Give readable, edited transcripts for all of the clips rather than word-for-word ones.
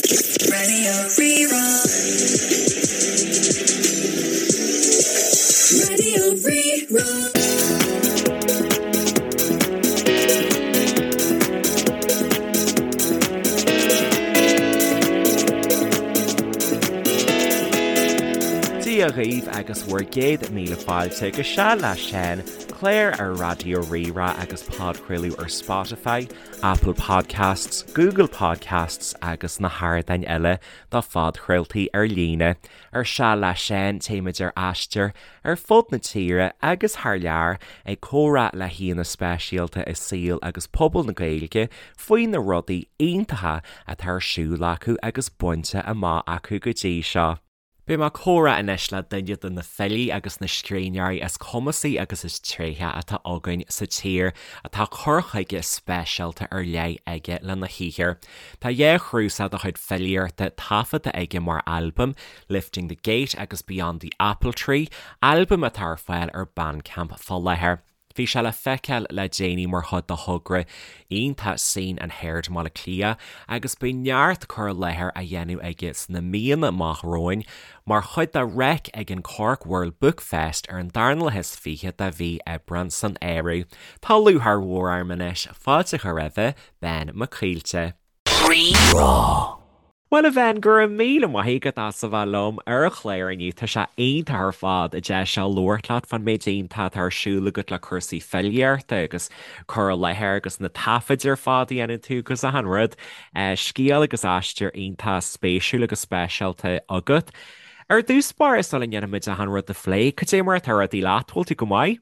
Radio Rí-Rá. Radio Rí-Rá. Dia dhaoibh agus bhur gcéad míle fáilte go Seal le Seán, clár ar Raidió Rí-Rá agus podchraoladh ar Spotify, Apple Podcasts, Google Podcasts agus na hardáin eile do phodchraoltaí ar líne. Ar Seal le Seán, téimid ar aistear ar fud na tíre agus thar lear ag comhrá le haíonna speisialta i saol agus pobal na Gaeilge faoi na rudaí iontacha atá ar siúl acu agus bainte amach acu go dtí seo. Beidh mé ag comhrá anois le duine de na filí agus na scríbhneoirí is cumasaí agus is tréithe atá againn sa tír, atá cur chuige speisialta ar leith aige lena shaothar. Tá dhá chnuasach dá chuid filíochta taifeadta aige mar albaim, Lifting the Gate agus Beyond the Apple Tree, albaim atá ar fáil ar Bandcamp fá láthair. Bhí sé le feiceáil le déanaí mar chuid de thogra iontach Seen and Heard i mBaile Átha Cliath agus beidh neart cur i láthair á dhéanamh aige sna míonna amach romhainn mar chuid de Reic ag an Cork World Book Fest ar an darna lá is 20 de mhí Aibreán san áireamh. Tá lúcháir mhór orm anois fáilte a chur roimhe, Ben Mac Coillte. Rí-Rá. Bhuel a Bhen, go raibh míle maith agat as a bheith liom ar an chlár inniu. Tá sé iontach ar fad an deis seo labhairt leat fán méid iontach atá ar siúl agat le cúrsaí filíochta agus cur i láthair agus na taifid ar fad a dhéanann tú agus achan rud. Scéal agus aistear iontach spéisiúil agus speisialta agat. Ar dtús báire sula ndéanfaimid achan rud a phlé, cad é mar atá rudaí leat? Bhfuil tú go maith?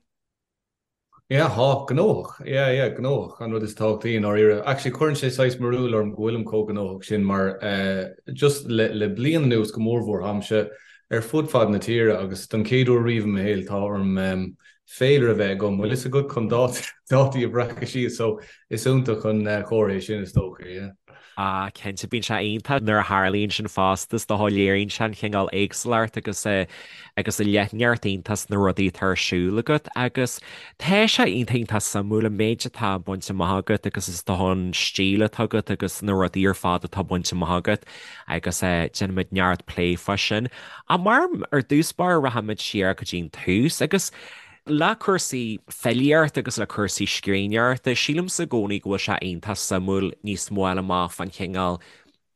Yeah, tá, gnóthach. Yeah, yeah, gnóthach, an rud is tábhachtaí i ndáiríre. Actually, cuireann sé saghas barúil orm go bhfuilim chomh gnóthach sin mar eh, just le, le bliain anuas go mórmhór táimse ar fud fad na tíre agus don chéad uair riamh i mo shaol tá orm em, féilire a bheith agam, bhfuil fhios agat chun dátaí a bhreacadh síos, so is iontach an eh, comhartha é sin is dócha, yeah. Ah, cinnte, bíonn sé iontach nuair a tharlaíonn sin fosta, is dócha, léiríonn sé an chineál éagsúlacht agus agus an leithneacht iontach sna rudaí atá ar siúl agat agus tá sé iontach iontach suimiúil an méid atá bainte amach agat agus is dócha an stíl atá agat agus na rudaí ar fad atá bainte amach agat agus déanfaimid neart plé fá sin. Ach mar ar dtús báire rachaimid siar go dtí an tús agus Le cúrsaí filíochta agus le cúrsaí scríbhneoireachta, sílimse i gcónaí go bhfuil sé iontach suimiúil níos mó a fháil amach fán chineál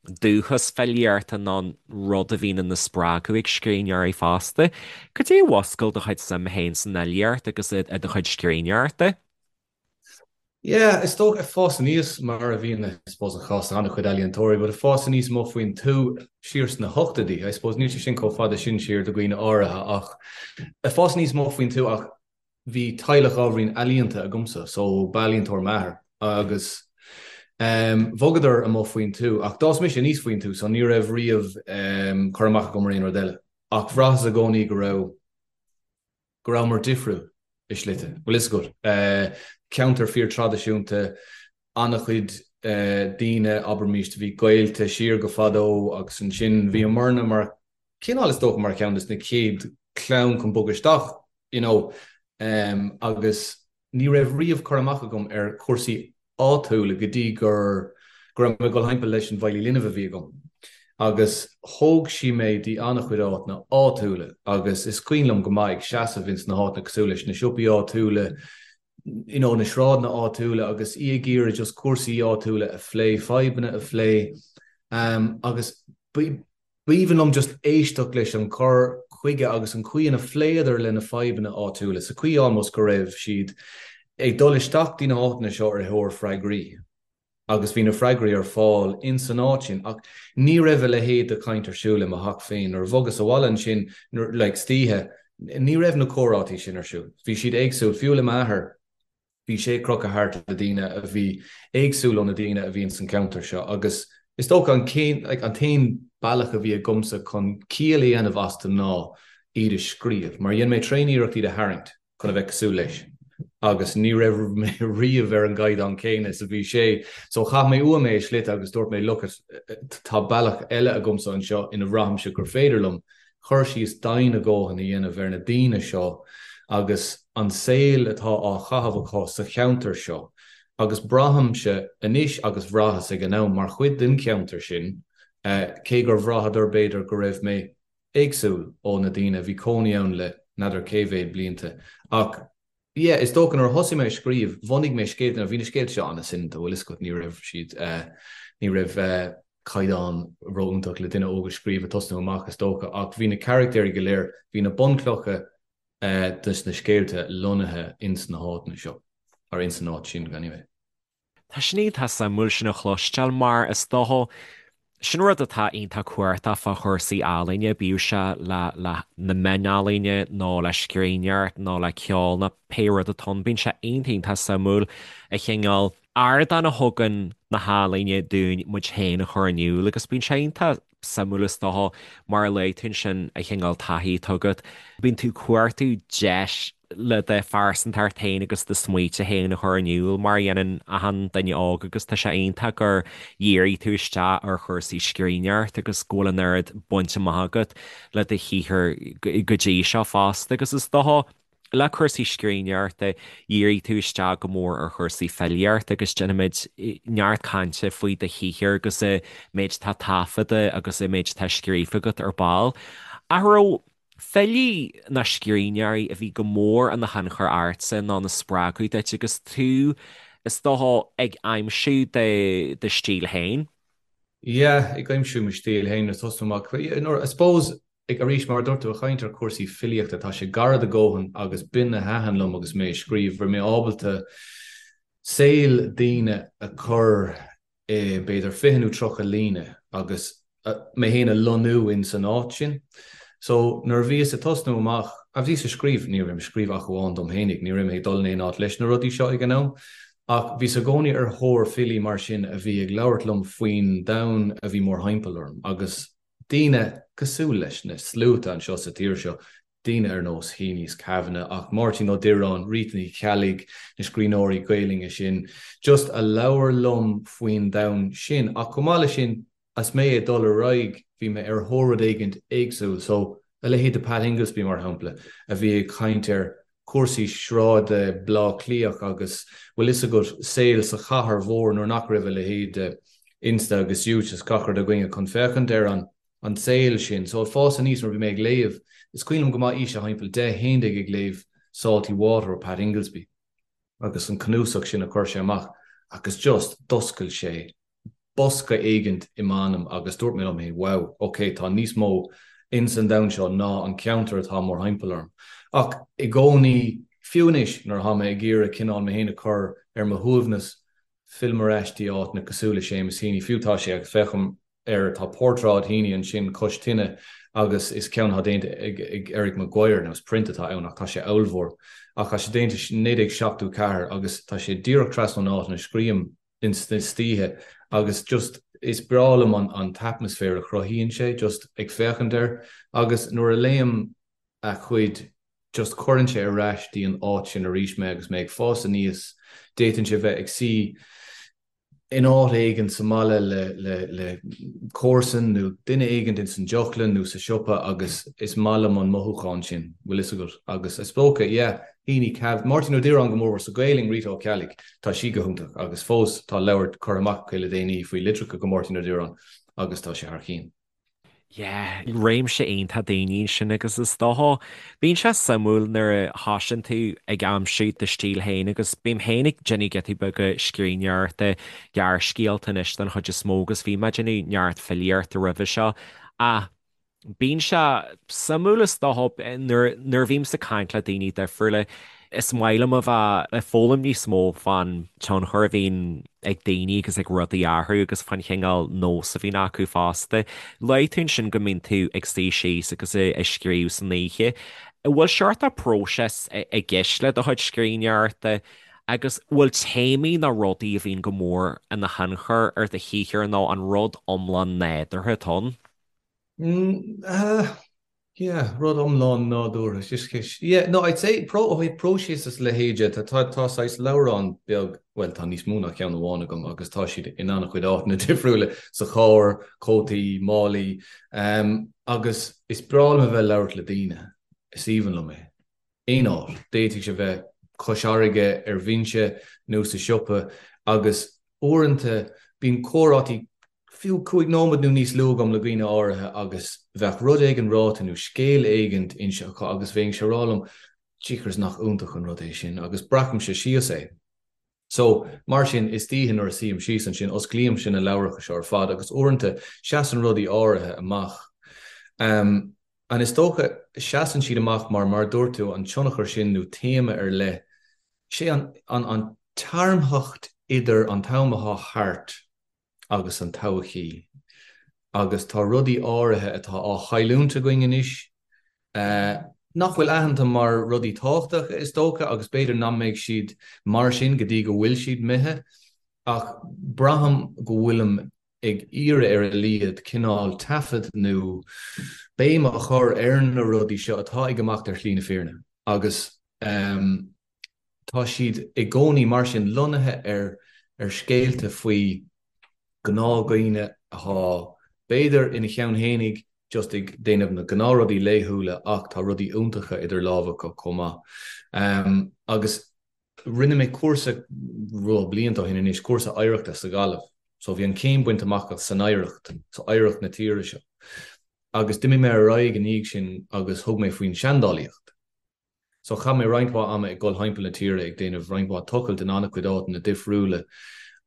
dúchas filíochta nó an rud a bhíonn ina spreagadh ag scríbhneoirí fosta. Cad é a mhúscail do chuid suim féin san fhilíocht agus i do chuid scríbhneoireachta? Yeah, is dócha ag fás aníos mar a bhíonn I suppose an chás an-chuid ealaíontóirí, but ag fás aníos amuigh faoin tuath siar sna hochtóidí, I suppose níl sé sin chomh fada sin siar do dhaoine áirithe ach ag fás aníos amuigh faoin tuath ach bhí teaghlach ábhairín ealaíonta agamsa so b'ealaíontóir m'athair agus um, bhogadar amuigh faoin tuath ach d'fhás mise aníos faoin tuath so ní raibh riamh um, cur amach agam ar aon rud eile ach bhraitheas i gcónaí go raibh go rabhamar difriúil i slite, bhfuil fhios agat. Ceantar fíor-traidisiúnta, an-chuid daoine, abraimis, a bhí gaolta siar go fadó agus ansin bhíomarna mar cineál is dócha mar cheann de na chéad chlann chun bogadh isteach, you know, agus Ní raibh riamh cur amach agam ar chúrsaí áitiúla go dtí gur go raibh mé ag dul thimpeall leis an bhfeighlí linbh a bhí agam. Agus thóg sí mé dtí an-chuid áiteanna áitiúla agus is cuimhin liom go maith ag seasamh ins na háiteanna cosúil leis na siopaí áitiúla, you know, na sráideanna áitiúla agus í ag iarraidh just cúrsaí áitiúla a phlé, fadhbanna a phlé agus B'aoibhinn liom just éisteacht leis an cur chuige agus an chaoi ina phléadar le na fadhbanna áitiúla, sa chaoi almost go raibh siad ag dul isteach dtí na háiteanna seo ar thóir freagraí agus bhí na freagraí ar fáil ins an áit sin ach ní raibh a leithéid de chaint ar siúl i mo theach féin. Nuair a bhogas abhaile ansin like istoíche ní raibh na comhráití sin ar siúl. Bhí siad éagsúil, fiú le m'athair. Bhí sé ag crochadh thart le daoine a bhí éagsúil ó na daoine a bhí ins an cheantar seo agus is dócha an like an t-aon bealach a bhí agamsa chun ciall a dhéanamh astu ná iad a scríobh mar dhein mé tréan-iarracht iad a tharraingt chun a bheith cosúil leis agus ní raibh mé riamh ar an gcaighdeán céanna is a bhí sé so chaith mé uaim é i slite agus dúirt mé look tá bealach eile agamsa anseo ina bhraithimse gur féidir liom cur síos domhain a dhóthain a dhéanamh ar na daoine seo agus an saol atá á chaitheamh acu sa cheantar seo agus braithimse anois agus bhraitheas ag an am mar chuid den cheantar sin. Cé gur bhraitheadar b'fhéidir go raibh mé éagsúil ó na daoine a bhí cónaí ann le n'fheadar cé mhéad blianta. Ach yeah, is dócha nuair a thosaigh mé ag scríobh, bhunaigh mé scéalta, now bhí na scéalta seo an-soineanta, bhfuil fhios agat, ní raibh siad, ní raibh caighdeán ró-iontach le duine óg a scríobh ag tosnú amach is dócha, ach bhí na carachtéirí go léir, bhí na bunchlocha dos na scéalta lonnaithe ins na háiteanna seo, or ins an áit sin anyway. Tá sin iontach suimiúil sin a chloisteáil mar is dócha sin rud atá iontach cumhachtach fá chúrsaí ealaíne, bíodh sé le le na meáin ealaíne nó le scríbhneoireacht nó le ceol nó pé rud atá ann, bíonn sé iontach iontach suimiúil an cineál ardán a thugann na healaíne dúinn muid féin a chur in iúl agus bíonn sé iontach suimiúil is dócha, mar a luaigh tú ansin, an cineál taithí atá agat. Bíonn tú ag cuartú deis le do phearsantacht féin agus do smaointe féin a chur in iúl, mar a dhéanann achan duine óg agus tá sé iontach gur dhírigh tú isteach ar chúrsaí scríbhneoireachta agus go bhfuil an oiread bainte amach agat le do shaothar go dtí seo fosta agus is dócha Le cúrsaí scríbhneoireachta, dhírigh tú isteach go mór ar chúrsaí filíochta agus déanfaimid neart cainte faoi do shaothar agus an méid atá taifeadta agus an méid atá scríofa agat ar ball. Ach an raibh filí nó scríbhneoirí a bhí go mór ina thionchar ortsa nó ina spreagadh duit agus tú, is dócha, ag aimsiú do stíl féin? Yeah, ag aimsiú mo stíl féin ag tosnú amach. I suppose Ag arís, mar a dúirt tú, ag caint ar chúrsaí filíochta, tá sé gar do dhóthain agus b'in a thaitin liom agus mé ag scríobh, raibh mé ábalta saol daoine a chur i b'fhéidir 20 nó 30 líne agus mé féin a lonnú in san áit sin. So nuair a bhíos ag tosnú amach, a bhíos ag scríobh, ní raibh mé ag scríobh ach amháin dom fhéinig, ní raibh mé ag dul in aon áit leis na rudaí seo ag an am, ach bhíos i gcónaí ar thóir filí mar sin a bhí ag labhairt liom faoin domhan a bhí mórthimpeall orm agus daoine cosúil leis na sluaite anseo sa tír seo, daoine ar nós Heaney's Kavanagh, ach Máirtín Ó Direáin, Rita Ní Cheallaigh, na scríbhneoirí Gaelainne sin, just a labhair liom faoin domhan sin. Ach chomh maith leis sin, as mé ag dul ar aghaidh, bhí mé ar thóir rud éigint éagsúil. So, a leithéid de Pat Ingoldsby, mar shampla, a bhí ag caint ar chúrsaí sráide Bleá Cliath agus, bhfuil fhios agat, saol sa chathair mhór nuair nach raibh a leithéid de Insta agus YouTube is gach rud againne chun féachaint ar an an saol sin. So ag fás aníos nuair a bhí mé ag léamh, is cuimhin liom go maith aois a thimpeall 10, 11 ag léamh Salty Water ó Pat Ingoldsby agus an cnuasach sin a chuir sé amach agus just d'oscail sé bosca éigint i m'anam agus dúirt mé liom féin, wow, ok, tá níos mó ins an domhan seo ná an ceantar atá mórthimpeall orm. Ach i gcónaí, fiú anois, nuair atá mé ag iarraidh cineál mé féin a chur ar mo shuaimhneas, fillim ar ais dtí áiteanna cosúil le Seamus Heaney, fiú tá sé, agus féachaim air, tá portráid Heaney ansin cois tine agus is ceann atá déanta ag Eric Maguire, nó is print atá ann ach tá sé ollmhór, ach tá sé déanta i 1974 agus tá sé díreach trasna ón áit ina scríobhaim ins na istoíche agus just is breá liom an an t-atmaisféar a chruthaíonn sé just ag féachaint air agus nuair a léim a chuid just cuireann sé ar ais dtí an áit sin arís mé agus mé ag fás aníos d'fhéadfainnse bheith ag suí in áit éigin sa mbaile le le le comharsan nó duine éigin ins an deoclann nó sa siopa agus is maith liom an mothúchán sin, bhfuil fhios agat agus is dócha yeah Heaney Cav, Máirtín Ó Direáin go mórmhór sa Ghaelainn, Rita Ó Ceallaigh, tá sí go hiontach agus fós tá leabhar curtha amach aici le déanaí faoi litreacha go Máirtín Ó Direáin agus tá sé thar chionn. Yeah, réimse iontach daoine ansin agus is dócha, bíonn sé suimiúil nuair a thosaíonn tú ag aimsiú do stíl féin agus bím féin ag déanamh giotaí beaga scríbhneoireachta, gearrscéalta anois den chuid is mó agus bhí mé ag déanamh neart filíochta roimhe seo ach Bíonn sé suimiúil is dócha nuair nuair a bhímse ag caint le daoine difriúla, is maith liom a bheith ag foghlaim níos mó fán tionchar a bhíonn ag daoine agus ag rudaí orthu agus fán chineál nós a bhíonn acu fosta. Luaigh tú ansin go mbíonn tú ag suí síos agus ag scríobh san oíche. An bhfuil seort de próiseas i gceist le do chuid scríbhneoireachta agus bhfuil téamaí nó rudaí a bhíonn go mór ina thionchar ar do shaothar nó an rud iomlán nádúrtha atá ann? Mm, yeah, rud iomlán nádúrtha. Just ceist. Yeah, no, I'd say pro, ó thaobh próiseas is a leithéid de, tá, tá, tá saghas leabhrán beag, bhuel, tá níos mó ná ceann amháin agam agus tá siad in an-chuid áiteanna difriúla, sa charr, cótaí, málaí, um, agus is breá liom a bheith ag labhairt le daoine. Is aoibhinn liom é. Aon áit. D'fhéadfadh sé bheith cois fharraige, ar bhinse nó sa siopa agus uaireanta bíonn comhráití. fiú 5 nóiméad nó níos lú agam le dhaoine áirithe agus bheadh rud éigin ráite nó scéal éigin inste acu agus bheinnse ag rá liom, jeekers nach iontach an rud é sin agus breacaimse síos é. So, mar sin, istoíche nuair a suím síos ansin, osclaímse na leabhracha seo ar fad agus uaireanta seasann rudaí áirithe amach. Um, and is dócha, seasann siad amach mar, mar a dúirt tú, an tionchar sin nó téama ar leith, sé an, an, an tearmthacht idir an t-am atá thart agus an todhchaí agus tá rudaí áirithe atá á chailliúint againn anois nach bhfuil aitheanta mar rudaí tábhachtacha is dócha agus b'fhéidir nach mbeidh siad mar sin go dtí go bhfuil siad imithe ach braithim go bhfuilim ag iarraidh ar a laghad cineál taifead nó béim a chur ar na rudaí seo atá ag imeacht ar shlí na fírinne agus Tá siad i gcónaí mar sin lonnaithe ar ar scéalta faoi ghnáthdhaoine atá b'fhéidir ina cheann fhéinig just ag déanamh na gnáthrudaí laethúla ach tá rudaí iontacha idir lámha acu chomh maith. Agus rinne mé cúrsa rud blianta ó shin anois, cúrsa oidhreachta sa Ghaillimh. So bhí an chéim bainte amach san oidhreacht, so oidhreacht na tíre seo. Agus d'imigh mé ar aghaidh i ndiaidh sin agus thug mé faoin seandálaíocht. So chaith mé roinnt mhaith ama ag dul thimpeall na tíre ag déanamh roinnt mhaith tochailt in an-chuid áiteanna difriúla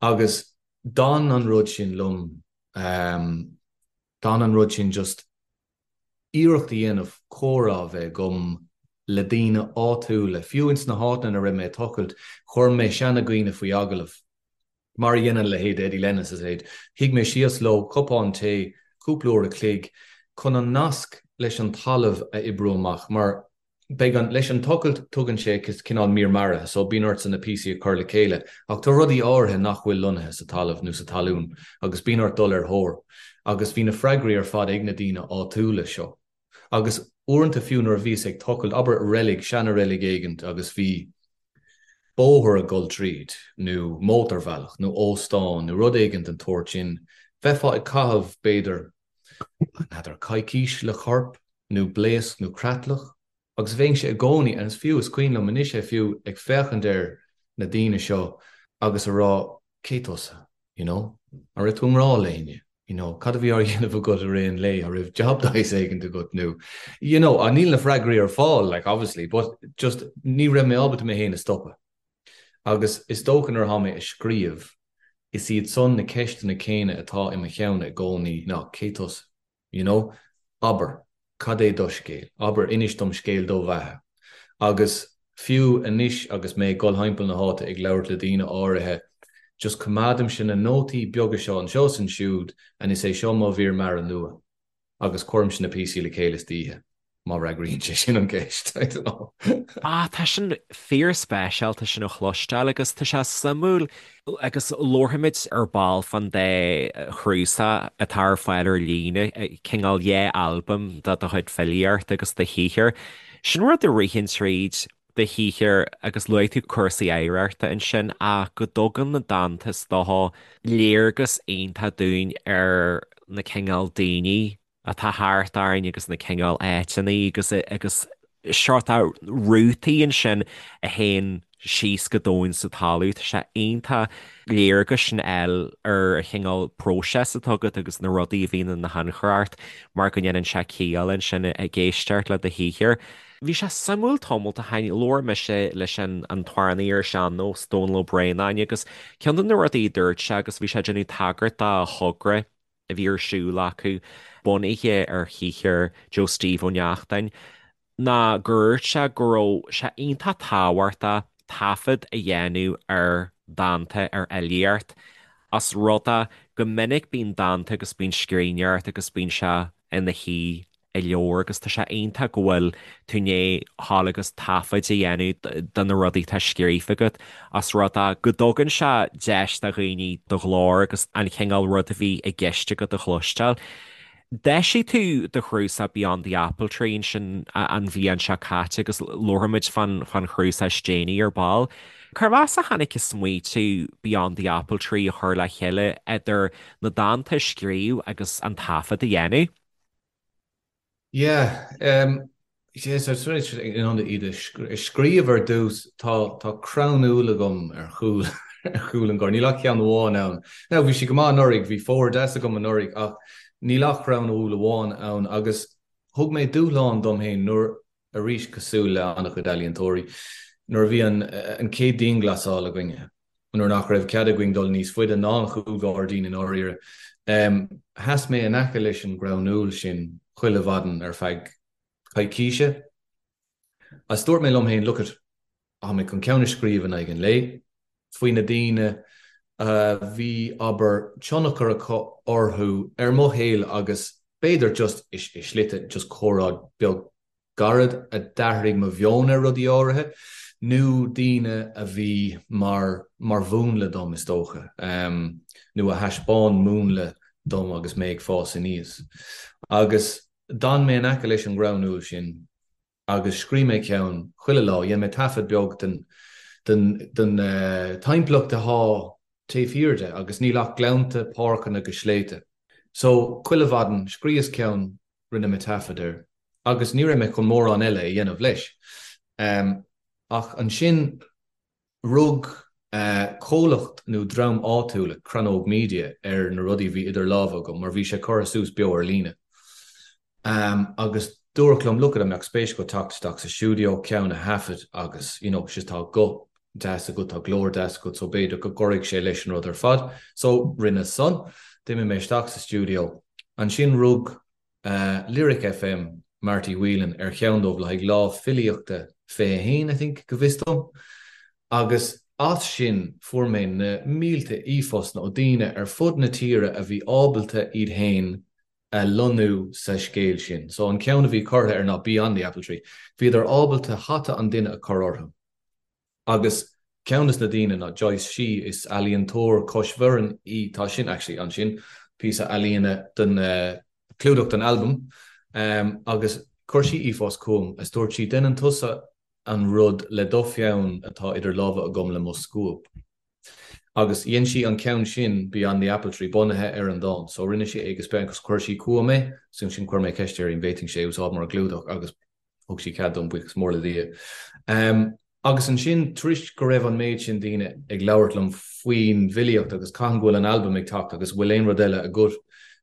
agus d'fhan an rud sin liom, d'fhan an rud sin just iarracht a dhéanamh comhrá a bheith agam le daoine áitiúla, fiú ins na háiteanna ina raibh mé ag tochailt, chuir mé seanadhaoine faoi agallamh. Mar a dhéanann leithéid Eddie Lennon is a leithéid. Shuigh mé síos leo, cupán tae, cúpla uair a chloig, chun an nasc leis an talamh a oibriú amach, mar beidh an, leis an tochailt tugann sé cineál mír maraithe, so bíonn ortsa na píosaí a chur le chéile, ach tá rudaí áirithe nach bhfuil lonnaithe sa talamh nó sa talún agus bíonn ort dul ar thóir. Agus bhí na freagraí ar fad ag na daoine áitiúla seo. Agus uaireanta fiú nuair a bhíos ag tochailt, abair reilig, seana-reilig éigint agus bhí bóthar ag dul tríd, nó mótarbhealach, nó óstán, nó rud éigint den tsórt sin, bheifeá ag caitheamh, b'fhéidir, n'fheadar, coicís le corp, nó blaosc nó creatlach, Agus bheinnse i gcónaí, and is fiú, is cuimhin liom anois é fiú, ag féachaint ar na daoine seo agus a rá, cé tusa? You know? An raibh tú i ngrá le héinne? You know, cad a bhí á dhéanamh agat i rith an lae? An raibh job de shaghas éigint agat nó, you know, níl na freagraí ar fáil, like, obviously, but just ní raibh mé ábalta mé féin a stopadh. Agus is dócha nuair atá mé ag scríobh, is iad san na ceisteanna céanna atá i mo cheann i gcónaí ná cé tusa? You know? Abair, cad é do scéal? Abair, inis dom scéal do bheatha. Agus fiú anois agus mé ag dul thimpeall na háite ag labhairt le daoine áirithe, just coimeádaimse na nótaí beaga seo anseo is ansiúd and is é seo mo mhír mara nua. Agus cuirimse na píosaí le chéile istoíche. Má fhreagraíonn sé sin an cheist, I don't know. Ah, tá sin fíorspeisialta sin a chloisteáil agus tá sé suimiúil agus labharfaimid ar ball fán dá chnuasach atá ar fáil ar líne, cineál dhá albam de do chuid filíochta agus do shaothar. Sin rud a ritheann tríd do shaothar agus luaigh tú cúrsaí oidhreachta ansin ach go dtugann na dánta is dócha léargas iontach dúinn ar na cineál daoine atá thart orainn agus na cineál áiteanna agus agus seort rútaí ansin a théann síos go domhain sa talamh. Tá sé iontach léargas sin a fháil ar an chineál próiseas atá agat agus na rudaí a bhíonn ina thionchar ort mar go ndéanann sé ciall ansin ag éisteacht le do shaothar. Bhí sé suimiúil tamall ó shin, labhair mise leis an an t-amhránaí ar sean-nós, Dónal Ó Braonáin agus ceann de na rudaí a dúirt sé agus bhí sé ag déanamh tagairt do thogra a bhí ar siúl acu, bunaithe ar shaothar Joe Steve Ó Neachtain, ná gur dhúirt sé go raibh sé iontach tábhachtach taifead a dhéanamh ar dhánta, ar fhilíocht, os rud é go minic bíonn dánta agus bíonn scríbhneoireacht agus bíonn sé ina shuí i leabhar agus tá sé iontach go bhfuil tú i ndiaidh dhul agus taifead a dhéanamh de na rudaí atá scríofa agat os rud é go dtugann sé deis do dhaoine do ghlór agus an chineál rud a bhí i gceist agat a chloisteáil. D'eisigh tú do chnuasach Beyond the Apple Tree ansin an bhliain seo caite agus labharfaimid fán chnuasach is déanaí ar ball. Cérbh as a tháinig an smaoitiú Beyond the Apple Tree a chur le chéile idir na dánta a scríobh agus an taifead a dhéanamh? Yeah, um, yeah, so it's really in ann iad a scríobh ar dtús, tá tá crann úll agam ar chúl. ar chúl an ghairdín. Níl ach ceann amháin ann. Now bhí sé go maith anuraidh, bhí fómhar deas agam anuraidh ach níl ach crann úll amháin ann agus thug mé dúshlán dom féin nuair, arís cosúil le an-chuid ealaíontóirí, nuair a bhí an an chéad dianghlasáil againne, nuair nach raibh cead againn dul níos faide ná an chúlghairdín i ndáiríre, sheas mé in aice leis an gcrann úll sin chuile mhaidin ar feadh coicíse agus dúirt mé liom féin, look it, tá mé chun ceann a scríobh in aghaidh an lae faoi na daoine a bhí, abair, tionchar acu orthu ar mo shaol agus b'fhéidir just i slite just comhrá beag gairid a d'athraigh mo mheon ar rudaí áirithe nó daoine a bhí mar mar mhúnla dom is dócha nó a thaispeáin múnla dom agus mé ag fás aníos. Agus d'fhan mé in aice leis an gcrann úll sin agus scríobh mé ceann chuile lá, dhein mé taifead beag den den den timpeallacht atá taobh thiar de agus níl ach gleannta, páirceanna agus sléibhte. So, chuile mhaidin, scríos ceann, rinne mé taifead air agus ní raibh mé chun mórán eile a dhéanamh leis. Ach ansin rug comhlacht nó dream áitiúil, Crannóg Media, ar na rudaí a bhí idir lámha agam mar bhí sé curtha suas beo ar líne. Agus dúradh liom, look it, an mbeadh spéis agat teacht isteach sa stiúideo, ceann a thaifead agus, you know, sea tá guth deas agat, tá glór deas agat so b'fhéidir go gcuirfidh sé leis an rud ar fad. So rinne san. D'imigh mé isteach sa stiúideo. Ansin rug Lyric FM, Marty Whelan, ar cheann dóibh le haghaidh Lá Filíochta 21, I think, go bhfios dom. Agus as sin fuair mé na mílte e-phostanna ó daoine ar fud na tíre a bhí ábalta iad féin a lonnú sa scéal sin. So an ceann a bhí curtha ar ná Beyond the Apple Tree, bhíodar ábalta hata an duine a chur orthu. Agus ceann des na daoine ná Joyce Shee, is ealaíontóir cois Bhoirinn í, tá sin actually ansin, píosa ealaíne don clúdach don albam, agus chuir sí e-phost chugam is dúirt sí déanann tusa an rud le do pheann atá idir lámha agam le mo scuab. Agus dhein sí an ceann sin, Beyond the Apple Tree, bunaithe ar an dán. So rinne sí é agus chuir sí chugam é, so ansin chuir mé ceist uirthi an bhféadfainnse é a úsáid mar ghlúdach agus thug sí cead dom, buíochas mór le Dia. Agus ansin, tar éis go raibh an méid sin daoine ag labhairt liom faoin bhfilíocht agus cathain go bhfuil an albam ag teacht agus bhfuil aon rud eile agat,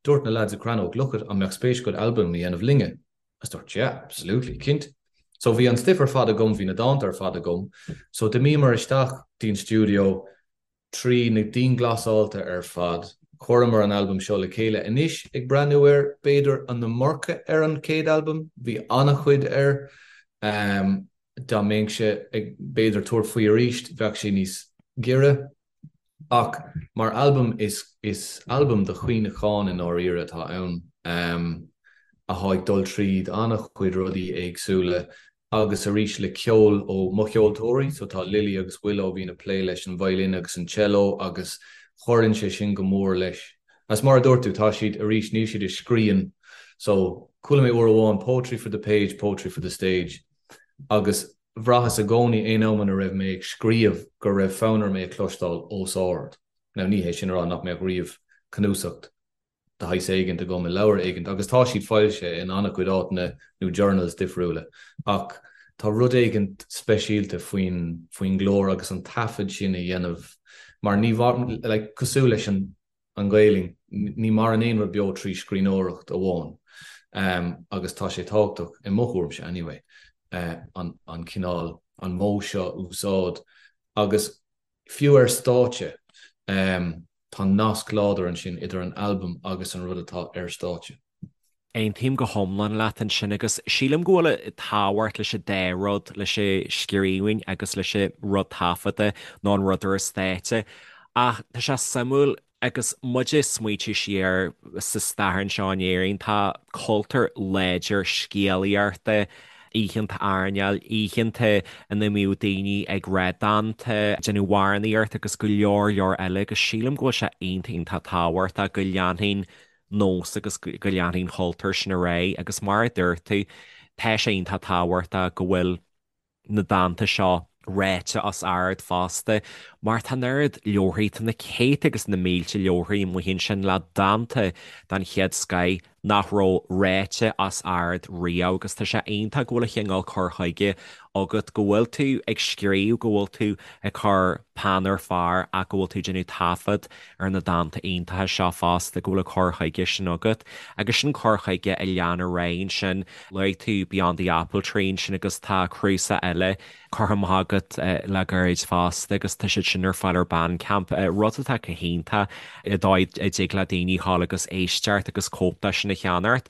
dúirt na lads i Crannóg, look it, an mbeadh spéis agat albam a dhéanamh linne? Agus dúirt, yeah, absolutely, cinnte. So bhí an stuif ar fad agam, bhí na dánta ar fad agam, so d'imíomar isteach dtí'n stiúideo, trí na dianghlasáilte ar fad, chuireamar an albam seo le chéile. Anois, ag breathnú air, b'fhéidir an iomarca ar an chéad albam, bhí an-chuid air. Dá mbeinnse ag, b'fhéidir, tabhairt faoi arís, bheadh sé níos giorra. Ach mar albam, is is albam de chuimhneachán i ndáiríre atá ann, atá ag dul tríd an-chuid rudaí éagsúla agus arís le ceol ó mo cheoltóirí, so tá Lily agus Willow a bhíonn ag plé leis an violin agus an cello agus cuireann sé sin go mór leis. Agus mar a dúirt tú, tá siad, arís, níl siad ag scríobh, so chuala mé uair amháin poetry for the page, poetry for the stage agus bhraitheas i gcónaí aon am ina raibh mé ag scríobh go raibh fonn orm é a chloisteáil os ard. Now ní hé sin a rá nach mbeadh riamh cnuasacht de shaghas éigint agam i leabhar éigint, agus tá siad foilsithe in an-chuid áiteanna nó journals difriúla, ach tá rud éigint speisialta faoin faoin nglór agus an taifead sin a dhéanamh mar ní like cosúil leis an an Ghaelainn, ní maireann aon rud beo trí scríbhneoireacht amháin agus tá sé tábhachtach, i mo thuairimse anyway, an an cineál, an modh seo a úsáid agus Fiú ar stáitse, tá nasc láidir ansin idir an albam agus an rud atá ar stáitse. Aontaím go hiomlán leat ansin agus sílim go bhfuil tábhacht leis an dá rud, leis an scríbhinn agus leis an rud taifeadta nó an rud ar an stáitse. Ach tá sé suimiúil Agus muid ag smaoitiú siar sa stair anseo in Éirinn, tá cultúr láidir scéalaíochta, oícheanta airneáil, oícheanta ina mbíodh daoine ag rá dánta, déanamh amhránaíocht agus go leor leor eile agus sílim go bhfuil sé iontach iontach tábhachtach go leanfaidh an nós agus go leanfaidh an cultúr sin ar aghaidh agus mar a dúirt tú, tá sé iontach tábhachtach go bhfuil na dánta seo ráite os ard fosta, mar tá an oiread leabharthaí, tá na céadta agus na mílte leabharthaí amuigh ansin le dánta den chéad scoith. nach raibh ráite os ard riamh agus tá sé iontach go bhfuil an chineál cur chuige agat, go bhfuil tú ag scríobh, go bhfuil tú ag cur peann ar phár ach go bhfuil tú ag déanamh taifead ar na dánta iontacha seo fosta, go bhfuil an cur chuige sin agat. Agus sin cur chuige a lean ar aghaidh ansin. Luaigh tú Beyond the Apple Tree ansin agus tá cnuasach eile curtha amach agat le gairid fosta agus tá siad sin ar fáil ar Bandcamp, rud atá go hiontach i dóigh a dtig le daoine dhul agus éisteacht agus cóip de sin a cheannacht.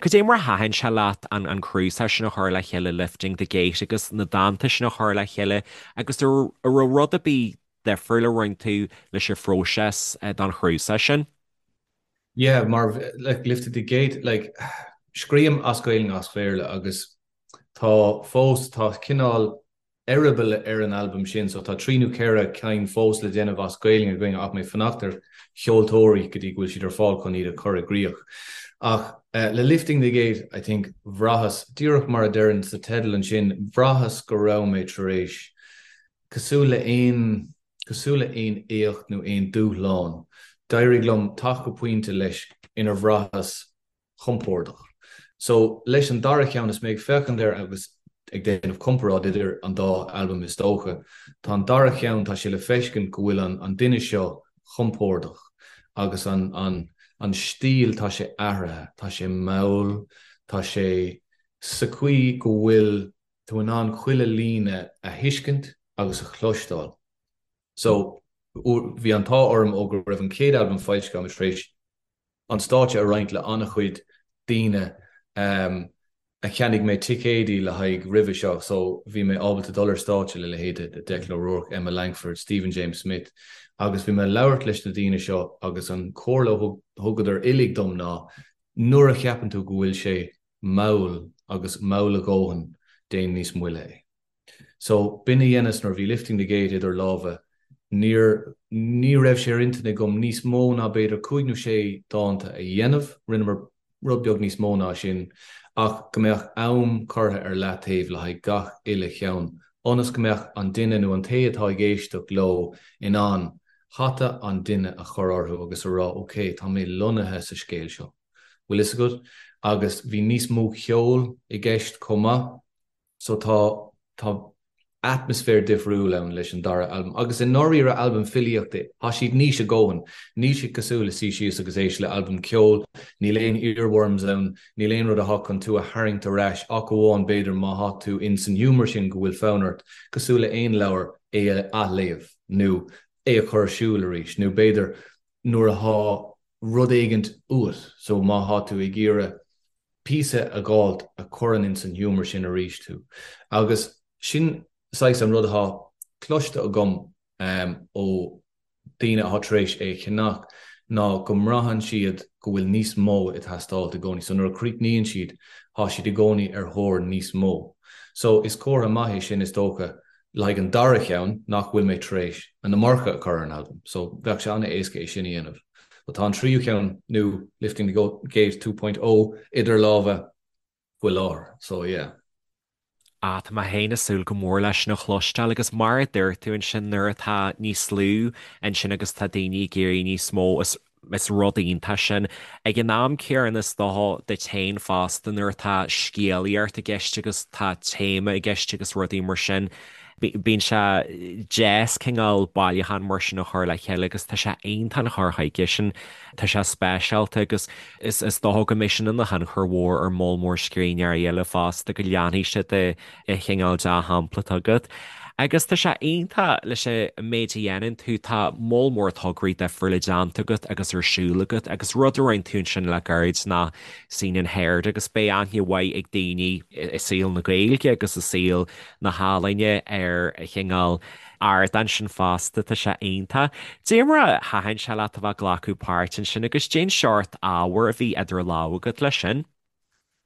Cad é mar a thaitin sé leat an an cnuasach sin a chur le chéile Lifting the Gate agus na dánta sin a chur le chéile agus an raibh rud ar bith difriúil a rinne tú leis an phróiseas don chnuasach sin? Yeah, mar like Lifting the Gate, like scríobhaim as Gaeilge as Béarla agus tá fós, tá cineál eireaball ar an albam sin so tá 3 nó 4 cinn fós le déanamh as Gaeilge againn ach mé ag fanacht ar cheoltóirí go dtí go bhfuil siad ar fáil chun iad a chur i gcrích. Ach le Lifting the Gate I think bhraitheas, díreach mar a deireann sa teideal ansin, bhraitheas go raibh mé tar éis, cosúil le aon, cosúil le aon éacht nó aon dúshlán, d'éirigh liom teacht go pointe leis inar bhraitheas compordach. So, leis an dara ceann, is mé ag féachaint air agus ag déanamh comparáid idir an dá albam is dócha, tá an dara ceann, tá sé le feiscint go bhfuil an an duine seo compordach agus an an an stíl, tá sé athraithe, tá sé mall, tá sé sa chaoi go bhfuil tú in ann chuile líne a thuiscint agus a chloisteáil. So, bhí an t-ádh orm ó go raibh an chéad albam foilsithe agam tar éis an stáitse a roinnt le an-chuid daoine a cheannaigh mé ticéidí le haghaidh roimhe seo so bhí mé ábalta dul ar stáitse le leithéide de Declan O'Rourke, Emma Langford, Stephen James Smith agus bhí mé ag labhairt leis na daoine seo agus an chomhairle a thugadar uilig dom ná nuair a cheapann tú go bhfuil sé mall agus mall a dhóthain déan níos moille é. So, b'in a dheineas nuair a bhí Lifting the Gate idir lámha, níor, ní raibh sé ar intinn agam níos mó ná b'fhéidir cúig nó sé dánta a dhéanamh, rinneamar rud beag níos mó ná sin, ach go mbeadh am curtha ar leataobh le haghaidh gach uile cheann, ionas go mbeadh an duine nó an té atá ag éisteacht leo in ann hata an duine a chur orthu agus a rá ok, tá mé lonnaithe sa scéal seo, bhfuil fhios agat? Agus bhí níos mó ceoil i gceist chomh maith. So tá, tá atmaisféar difriúil ann leis an dara albam. Agus i ndáiríre albam filíochta é. Tá siad niche a dhóthain. Níl siad cosúil le suí síos agus éist le albam ceoil, níl aon earworms ann, níl aon rud atá chun tú a tharraingt ar ais ach amháin b'fhéidir má thá tú in san humour sin go bhfuil fonn ort, cosúil le aon leabhar, é a athléamh nó é a chur ar siúl arís nó b'fhéidir nuair athá rud éigint uait so má thá tú ag iarraidh píosa a dh'fháilt a chuireann ins an humour sin arís thú. Agus sin saghas an rud athá cloiste agam ó daoine athá tar éis é a cheannach ná go mbraitheann siad go bhfuil níos mó ag teastáilt i gcónaí. So nuair a chríochnaíonn siad, thá siad i gcónaí ar thóir níos mó. So is comhartha maith é sin is dócha le haghaidh an dara cheann nach bhfuil mé tar éis an iomarca a chur ar an albam, so bheadh sé an-éasca é sin a dhéanamh. But tá an tríú ceann, nó Lifting the Gate 2.0, idir lámha faoi láthair, so yeah. Ah, tá mé féin ag súil go mór leis sin a chloisteáil agus mar a dúirt tú ansin nuair atá níos lú ansin agus tá daoine ag iarraidh níos mó is Is rud iontach sin. Ag an am céanna is dócha duit féin fosta nuair atá scéalaíocht i gceist agus tá téama i gceist agus rudaí mar sin, bíonn sé deas cineál bailiúchán mar sin a chur le chéile agus tá sé iontach an cur chuige sin. Tá sé speisialta agus is dócha go mbeidh sin ina thionchar mhór ar moll mór scríbhneoirí eile fosta go leanfaidh siad de an chineál dea-shampla atá agat. Agus tá sé iontach leis an méid a dhéanann tú, tá moll mór tograí difriúla déanta agat agus ar siúl agat agus rud a rinne tú ansin le gairid ná Scene and Heard agus beidh aithne mhaith ag daoine i saol na Gaeilge agus i saol na healaíne ar an chineál ardán sin fosta, tá sé iontach. Dé mar a thaitin sé leat a bheith ag glacadh páirt ansin agus cén seort ábhair a bhí idir lámha agat leis sin.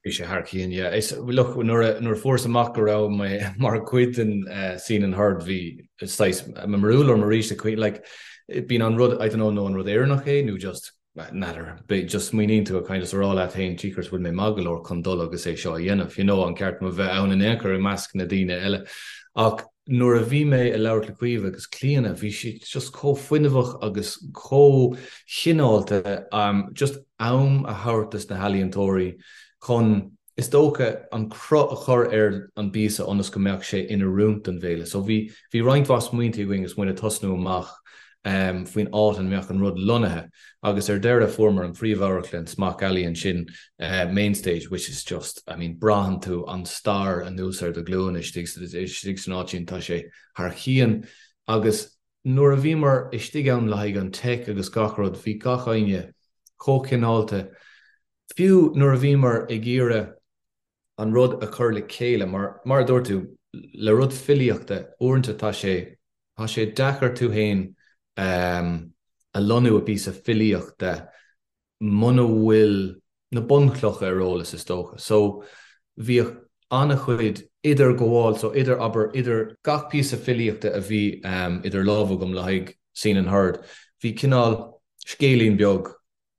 Bhí sé thar cionn, yeah. Is, look, nuair a, nuair a fuaireas amach go raibh mé mar chuid den Scene and Heard, bhí saghas, mo mbarúil orm arís, like, bíonn an rud, I don't know, nó an rud Éireannach é nó just, n'fheadar, b'é, just smaoiníonn tú a kind of is a rá leat féin, jeekers, bhfuil mé maith go leor chun dul agus é seo a dhéanamh, you know, an ceart dom a bheith ann in aon chor i measc na daoine eile. Ach nuair a bhí mé ag labhairt le Caoimhe agus Clíona, bhí siad just chomh fuinneamhach agus chomh cineálta, just. am a thabhairt dos na healaíontóirí chun, is dócha, an cruth a chur ar an bpíosa ionas go mbeadh sé in oiriúint don bhféile. So bhí, bhí roinnt mhaith smaointe againn agus muid ag tosnú amach faoin áit ina mbeadh an rud lonnaithe agus ar deireadh fuaireamar an phríomhamharclann Smock Alley ansin, Mainstage, which is just, I mean, braitheann tú an stair anuas ar do ghlúine istigh, istigh san áit sin, tá sé thar cionn agus nuair a bhíomar istigh ann le haghaidh an teic agus gach rud, bhí gach éinne chomh cineálta, fiú nuair a bhíomar ag iarraidh an rud a chur le chéile, mar, mar a dúirt tú, le rud filíochta, uaireanta tá sé, tá sé deacair tú féin a lonnú i bpíosa filíochta muna bhfuil na bunchlocha ar eolas, is dócha. So, bhíodh an-chuid idirghabháil, so idir, abair, idir gach píosa filíochta a bhí idir lámha agam le haghaidh Seen and Heard, bhí cineál scéilín beag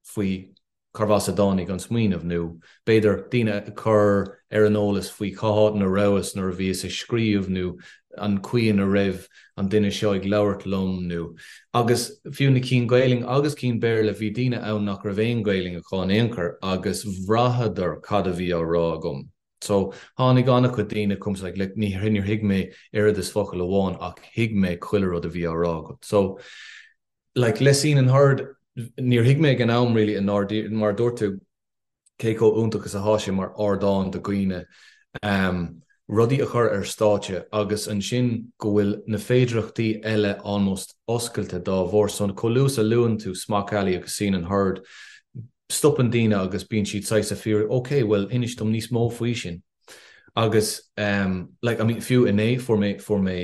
faoi cárbh as a dtáinig an smaoineamh, nó b'fhéidir daoine a chur ar an eolas faoi cá háit ina rabhas nuair a bhíos ag scríobh nó an chaoi ina raibh an duine seo ag labhairt liom nó. Agus fiú na cinn Gaelainn agus cinn Béarla, bhí daoine ann nach raibh aon Ghaelainn acu in aon chor agus bhraitheadar cad a bhí á rá agam. So, tháinig an-chuid daoine chugam like, like, ní, níor thuig mé oiread is focal amháin ach thuig mé chuile rud a bhí á rá agat. So, like, le Seen and Heard, níor thuig mé ag an am really i ndáiríre, mar a dúirt tú, cé chomh iontach is atá sé mar ardán do dhaoine rudaí a chur ar stáitse agus ansin go bhfuil na féidireachtaí eile almost oscailte dá bharr. So chomh luath is a luann tú Smock Alley agus Seen and Heard, stopann daoine agus bíonn siad saghas ag fiafraí, ok, bhuel inis dom níos mó faoi sin. Agus like, I mean, fiú inné fuair mé, fuair mé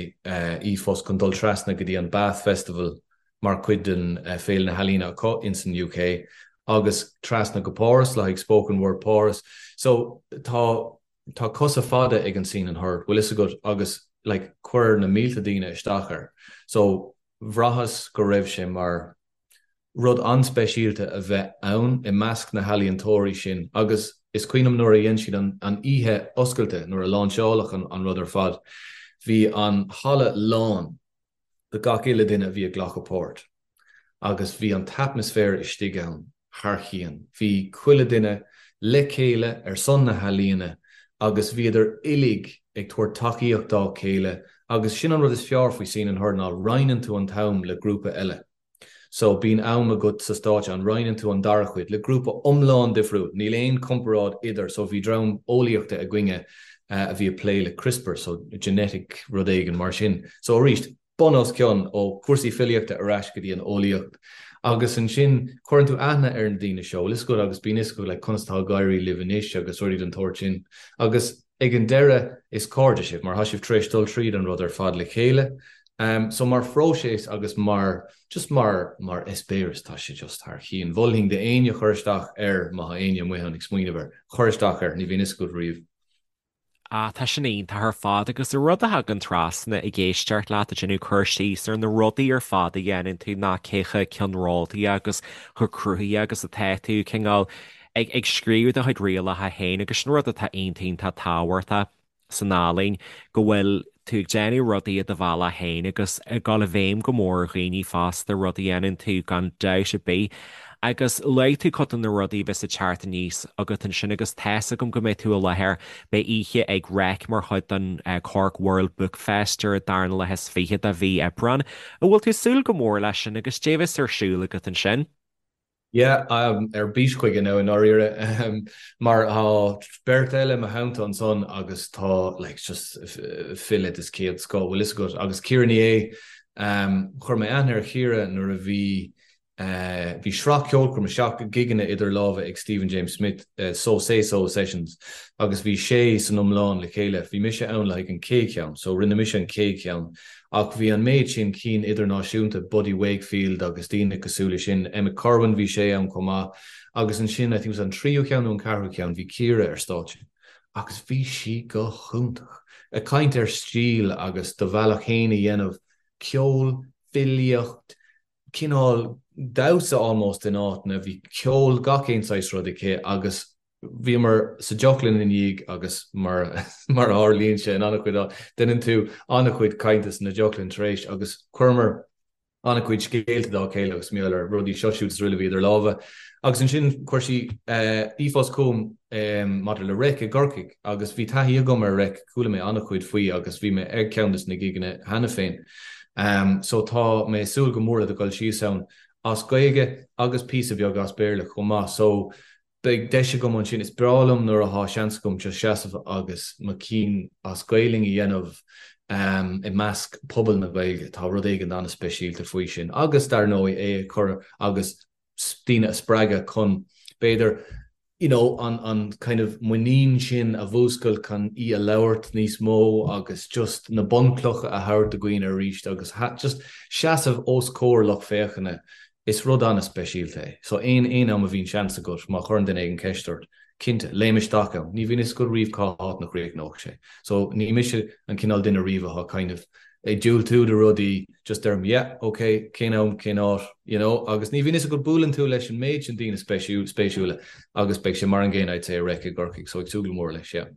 e-phost chun dul trasna go dtí an Bath Festival mar chuid den Féile na hEalaíne acu ins an UK agus trasna go Páras le haghaidh Spoken Word Páras. So tá tá cosa fada ag an Seen and Heard, bhfuil fhios agat, agus like chuir na mílte daoine isteach air. So bhraitheas go raibh sé mar rud an-speisialta a bheith ann i measc na healaíontóirí sin agus is cuimhin liom nuair a dhein siad an an oíche oscailte, nuair a láinseáladh an an rud ar fad, bhí an halla lán de gach uile duine a bhí ag glacadh páirt agus bhí an t-atmaisféar istigh ann thar cionn. Bhí chuile duine le chéile ar son na healaíona agus bhíodar uilig ag tabhairt tacaíocht dá chéile agus sin an rud is fearr faoi Seen and Heard ná roinneann tú an t-am le grúpa eile. So bíonn am agat sa stáitse an roinneann tú an dara cuid le grúpa iomlán difriúil, níl aon comparáid idir, so bhí dream eolaíochta againne a bhí ag plé le CRISPR, so genetic rud éigin mar sin. So arís, bun os cionn ó chúrsaí filíochta ar ais go dtí an eolaíocht. Agus ansin cuireann tú aithne ar na daoine seo, bhfuil fhios agat agus bíonn fhios agat like conas atá ag éirí libh anois agus rudaí den tsórt sin. Agus ag an deireadh is cairde sibh mar tá sibh tar éis dul tríd an rud ar fad le chéile. So mar phróiseas agus mar, just mar, mar eispéireas tá sé just thar cionn. Mholfainn d'éinne cur isteach air má tá éinne amuigh ann ag smaoineamh air, cur isteach air, ní bhíonn fhios agat riamh. Ah, tá sin iontach ar fad agus an rud a thagann trasna ag éisteacht leat ag déanamh cur síos ar na rudaí ar fad a dhéanann tú ná cé chomh ceannródaí agus chomh cruthaithe agus atá tú, cineál ag, ag scríobh do chuid rialacha féin agus sin rud atá iontach iontach tábhachtach. san ealaín, go bhfuil tú ag déanamh rudaí i do bhealach féin agus ag dul i bhfeidhm go mór ar dhaoine fosta, rud a dhéanann tú gan dabht ar bith. Agus luaigh tú cuid de na rudaí a bheas ag teacht aníos agat ansin agus tá's agam go mbeidh tú i láthair, beidh oíche ag Reic mar chuid den Cork World Book Fest ar an darna lá is fiche de mhí Aibreán. An bhfuil tú ag súil go mór leis sin agus cad é a bheas ar siúl agat ansin? Yeah, ar bís chuige now i ndáiríre, mar tá beirt eile i mo theannta ansan agus tá like just file des chéad scoth, bhfuil fhios agat, agus Ciara Ní É, chuir mé aithne ar Chiara nuair a bhí bhí sraith ceolchoirme, sraith gigeanna idir lámha ag Stephen James Smith, So Say So Sessions, agus bhí sé san iomlán le chéile, bhí mise ann le haghaidh an chéad cheann, so rinne mise an chéad cheann Ach bhí an méid sin cinn idirnáisiúnta, Buddy Wakefield agus daoine cosúil leis sin, Emmet Kirwan, bhí sé ann chomh maith. Agus ansin, I think it was an tríú ceann nó an ceathrú ceann, bhí Ciara ar stáitse. Agus bhí sí go hiontach. Ag caint ar stíl agus do bhealach fhéin a dhéanamh, ceol, filíocht, cineál damhsa almost in áiteanna, bhí ceol, gach aon saghas rud aici agus Bhíomar sa deoclann ina dhiaidh agus mar a tharlaíonn sé in an-chuid áit, déanann tú an-chuid cainte sna deoclann tar éis agus chuireamar. An-chuid scéalta dá chéile agus mar gheall ar rudaí seo siúd is araile a bhí idir lámha. Agus ansin chuir sí ríomhphost chugam maidir le Reic i gCorcaigh agus bhí taithí agam ar Reic, chuala mé an-chuid faoi agus bhí mé ag ceann de na gigeanna cheana féin. So tá mé ag súil go mór le dul síos ann as Gaeilge agus píosa beag as Béarla chomh maith. So Beidh deis agam ansin. Is breá liom nuair athá seans agam just seasamh agus mo cinn as Gaelainn a dhéanamh i measc pobal na Gaeilge. Tá rud éigin an-speisialta faoi sin. Agus, dar ndóigh, é a chur agus daoine a spreagadh chun, b'fhéidir, you know, an an kind of muinín sin a mhúscailt chun í a labhairt níos mó agus just na bunchlocha a thabhairt do dhaoine arís agus just seasamh os comhair lucht féachana Is rud an-speisialta é. So aon aon am a bhíonn seans agat, má chuireann duine éigin ceist ort, cinnte, léim isteach ann. Ní bhíonn fhios agat riamh cá háit ina chríochnóidh sé. So ní mise an cineál duine riamh atá kind of ag diúltú do rudaí, just deirim yeah, ok, cén am, cén áit, you know, agus ní bhíonn fhios agat buaileann tú leis an méid sin daoine spéisiúla agus beidh sé mar an gcéanna I'd say i Reic i gCorcaigh, so ag súil go mór leis, yeah.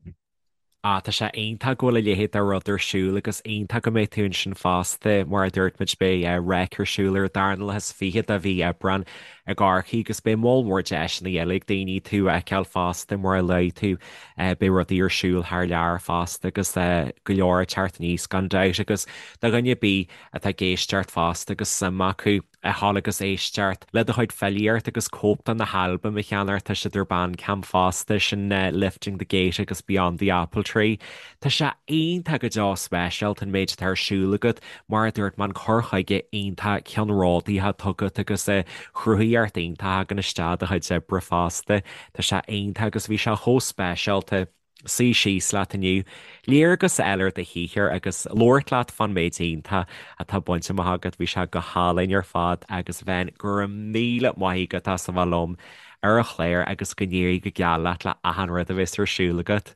Ah, tá sé iontach go bhfuil a leithéid de rud ar siúl agus iontach go mbeidh tú ansin fosta. Mar a dúirt muid, beidh Reic ar siúl ar an darna lá is fiche de mhí Aibreán i gCorcaigh agus beidh moll mór deiseanna eile ag daoine tú a fheiceáil fosta mar a luaigh tú. Beidh rudaí ar siúl thar lear fosta agus go leor ag teacht aníos gan dabht agus do dhuine ar bith atá ag éisteacht fosta agus suim acu a ghabháil agus éisteacht le do chuid filíocht agus cóip de na halbaim a cheannacht, tá siad ar Bandcamp fosta, sin Lifting the Gate agus Beyond the Apple Tree. Tá sé iontach go deo speisialta an méid atá ar siúl agat, mar a dúirt mé an cur chuige iontach ceannródaíoch atá agat agus cruthaitheacht iontach a thagann isteach i do chuid oibre fosta. Tá sé iontach agus bhí sé chomh speisialta. suí síos leat inniu, léargas a fháil ar do shaothar agus labhairt leat fán méid iontach atá bainte amach agat. Bhí sé go hálainn ar fad agus Ben, go raibh míle maith agat as a bheith liom ar an chlár agus go n-éirí go geal leat le achan rud a bheas ar siúl agat.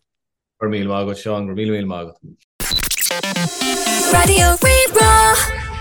Go raibh míle maith agat Seán, go raibh míle míle maith agat. Raidió Rí-Rá.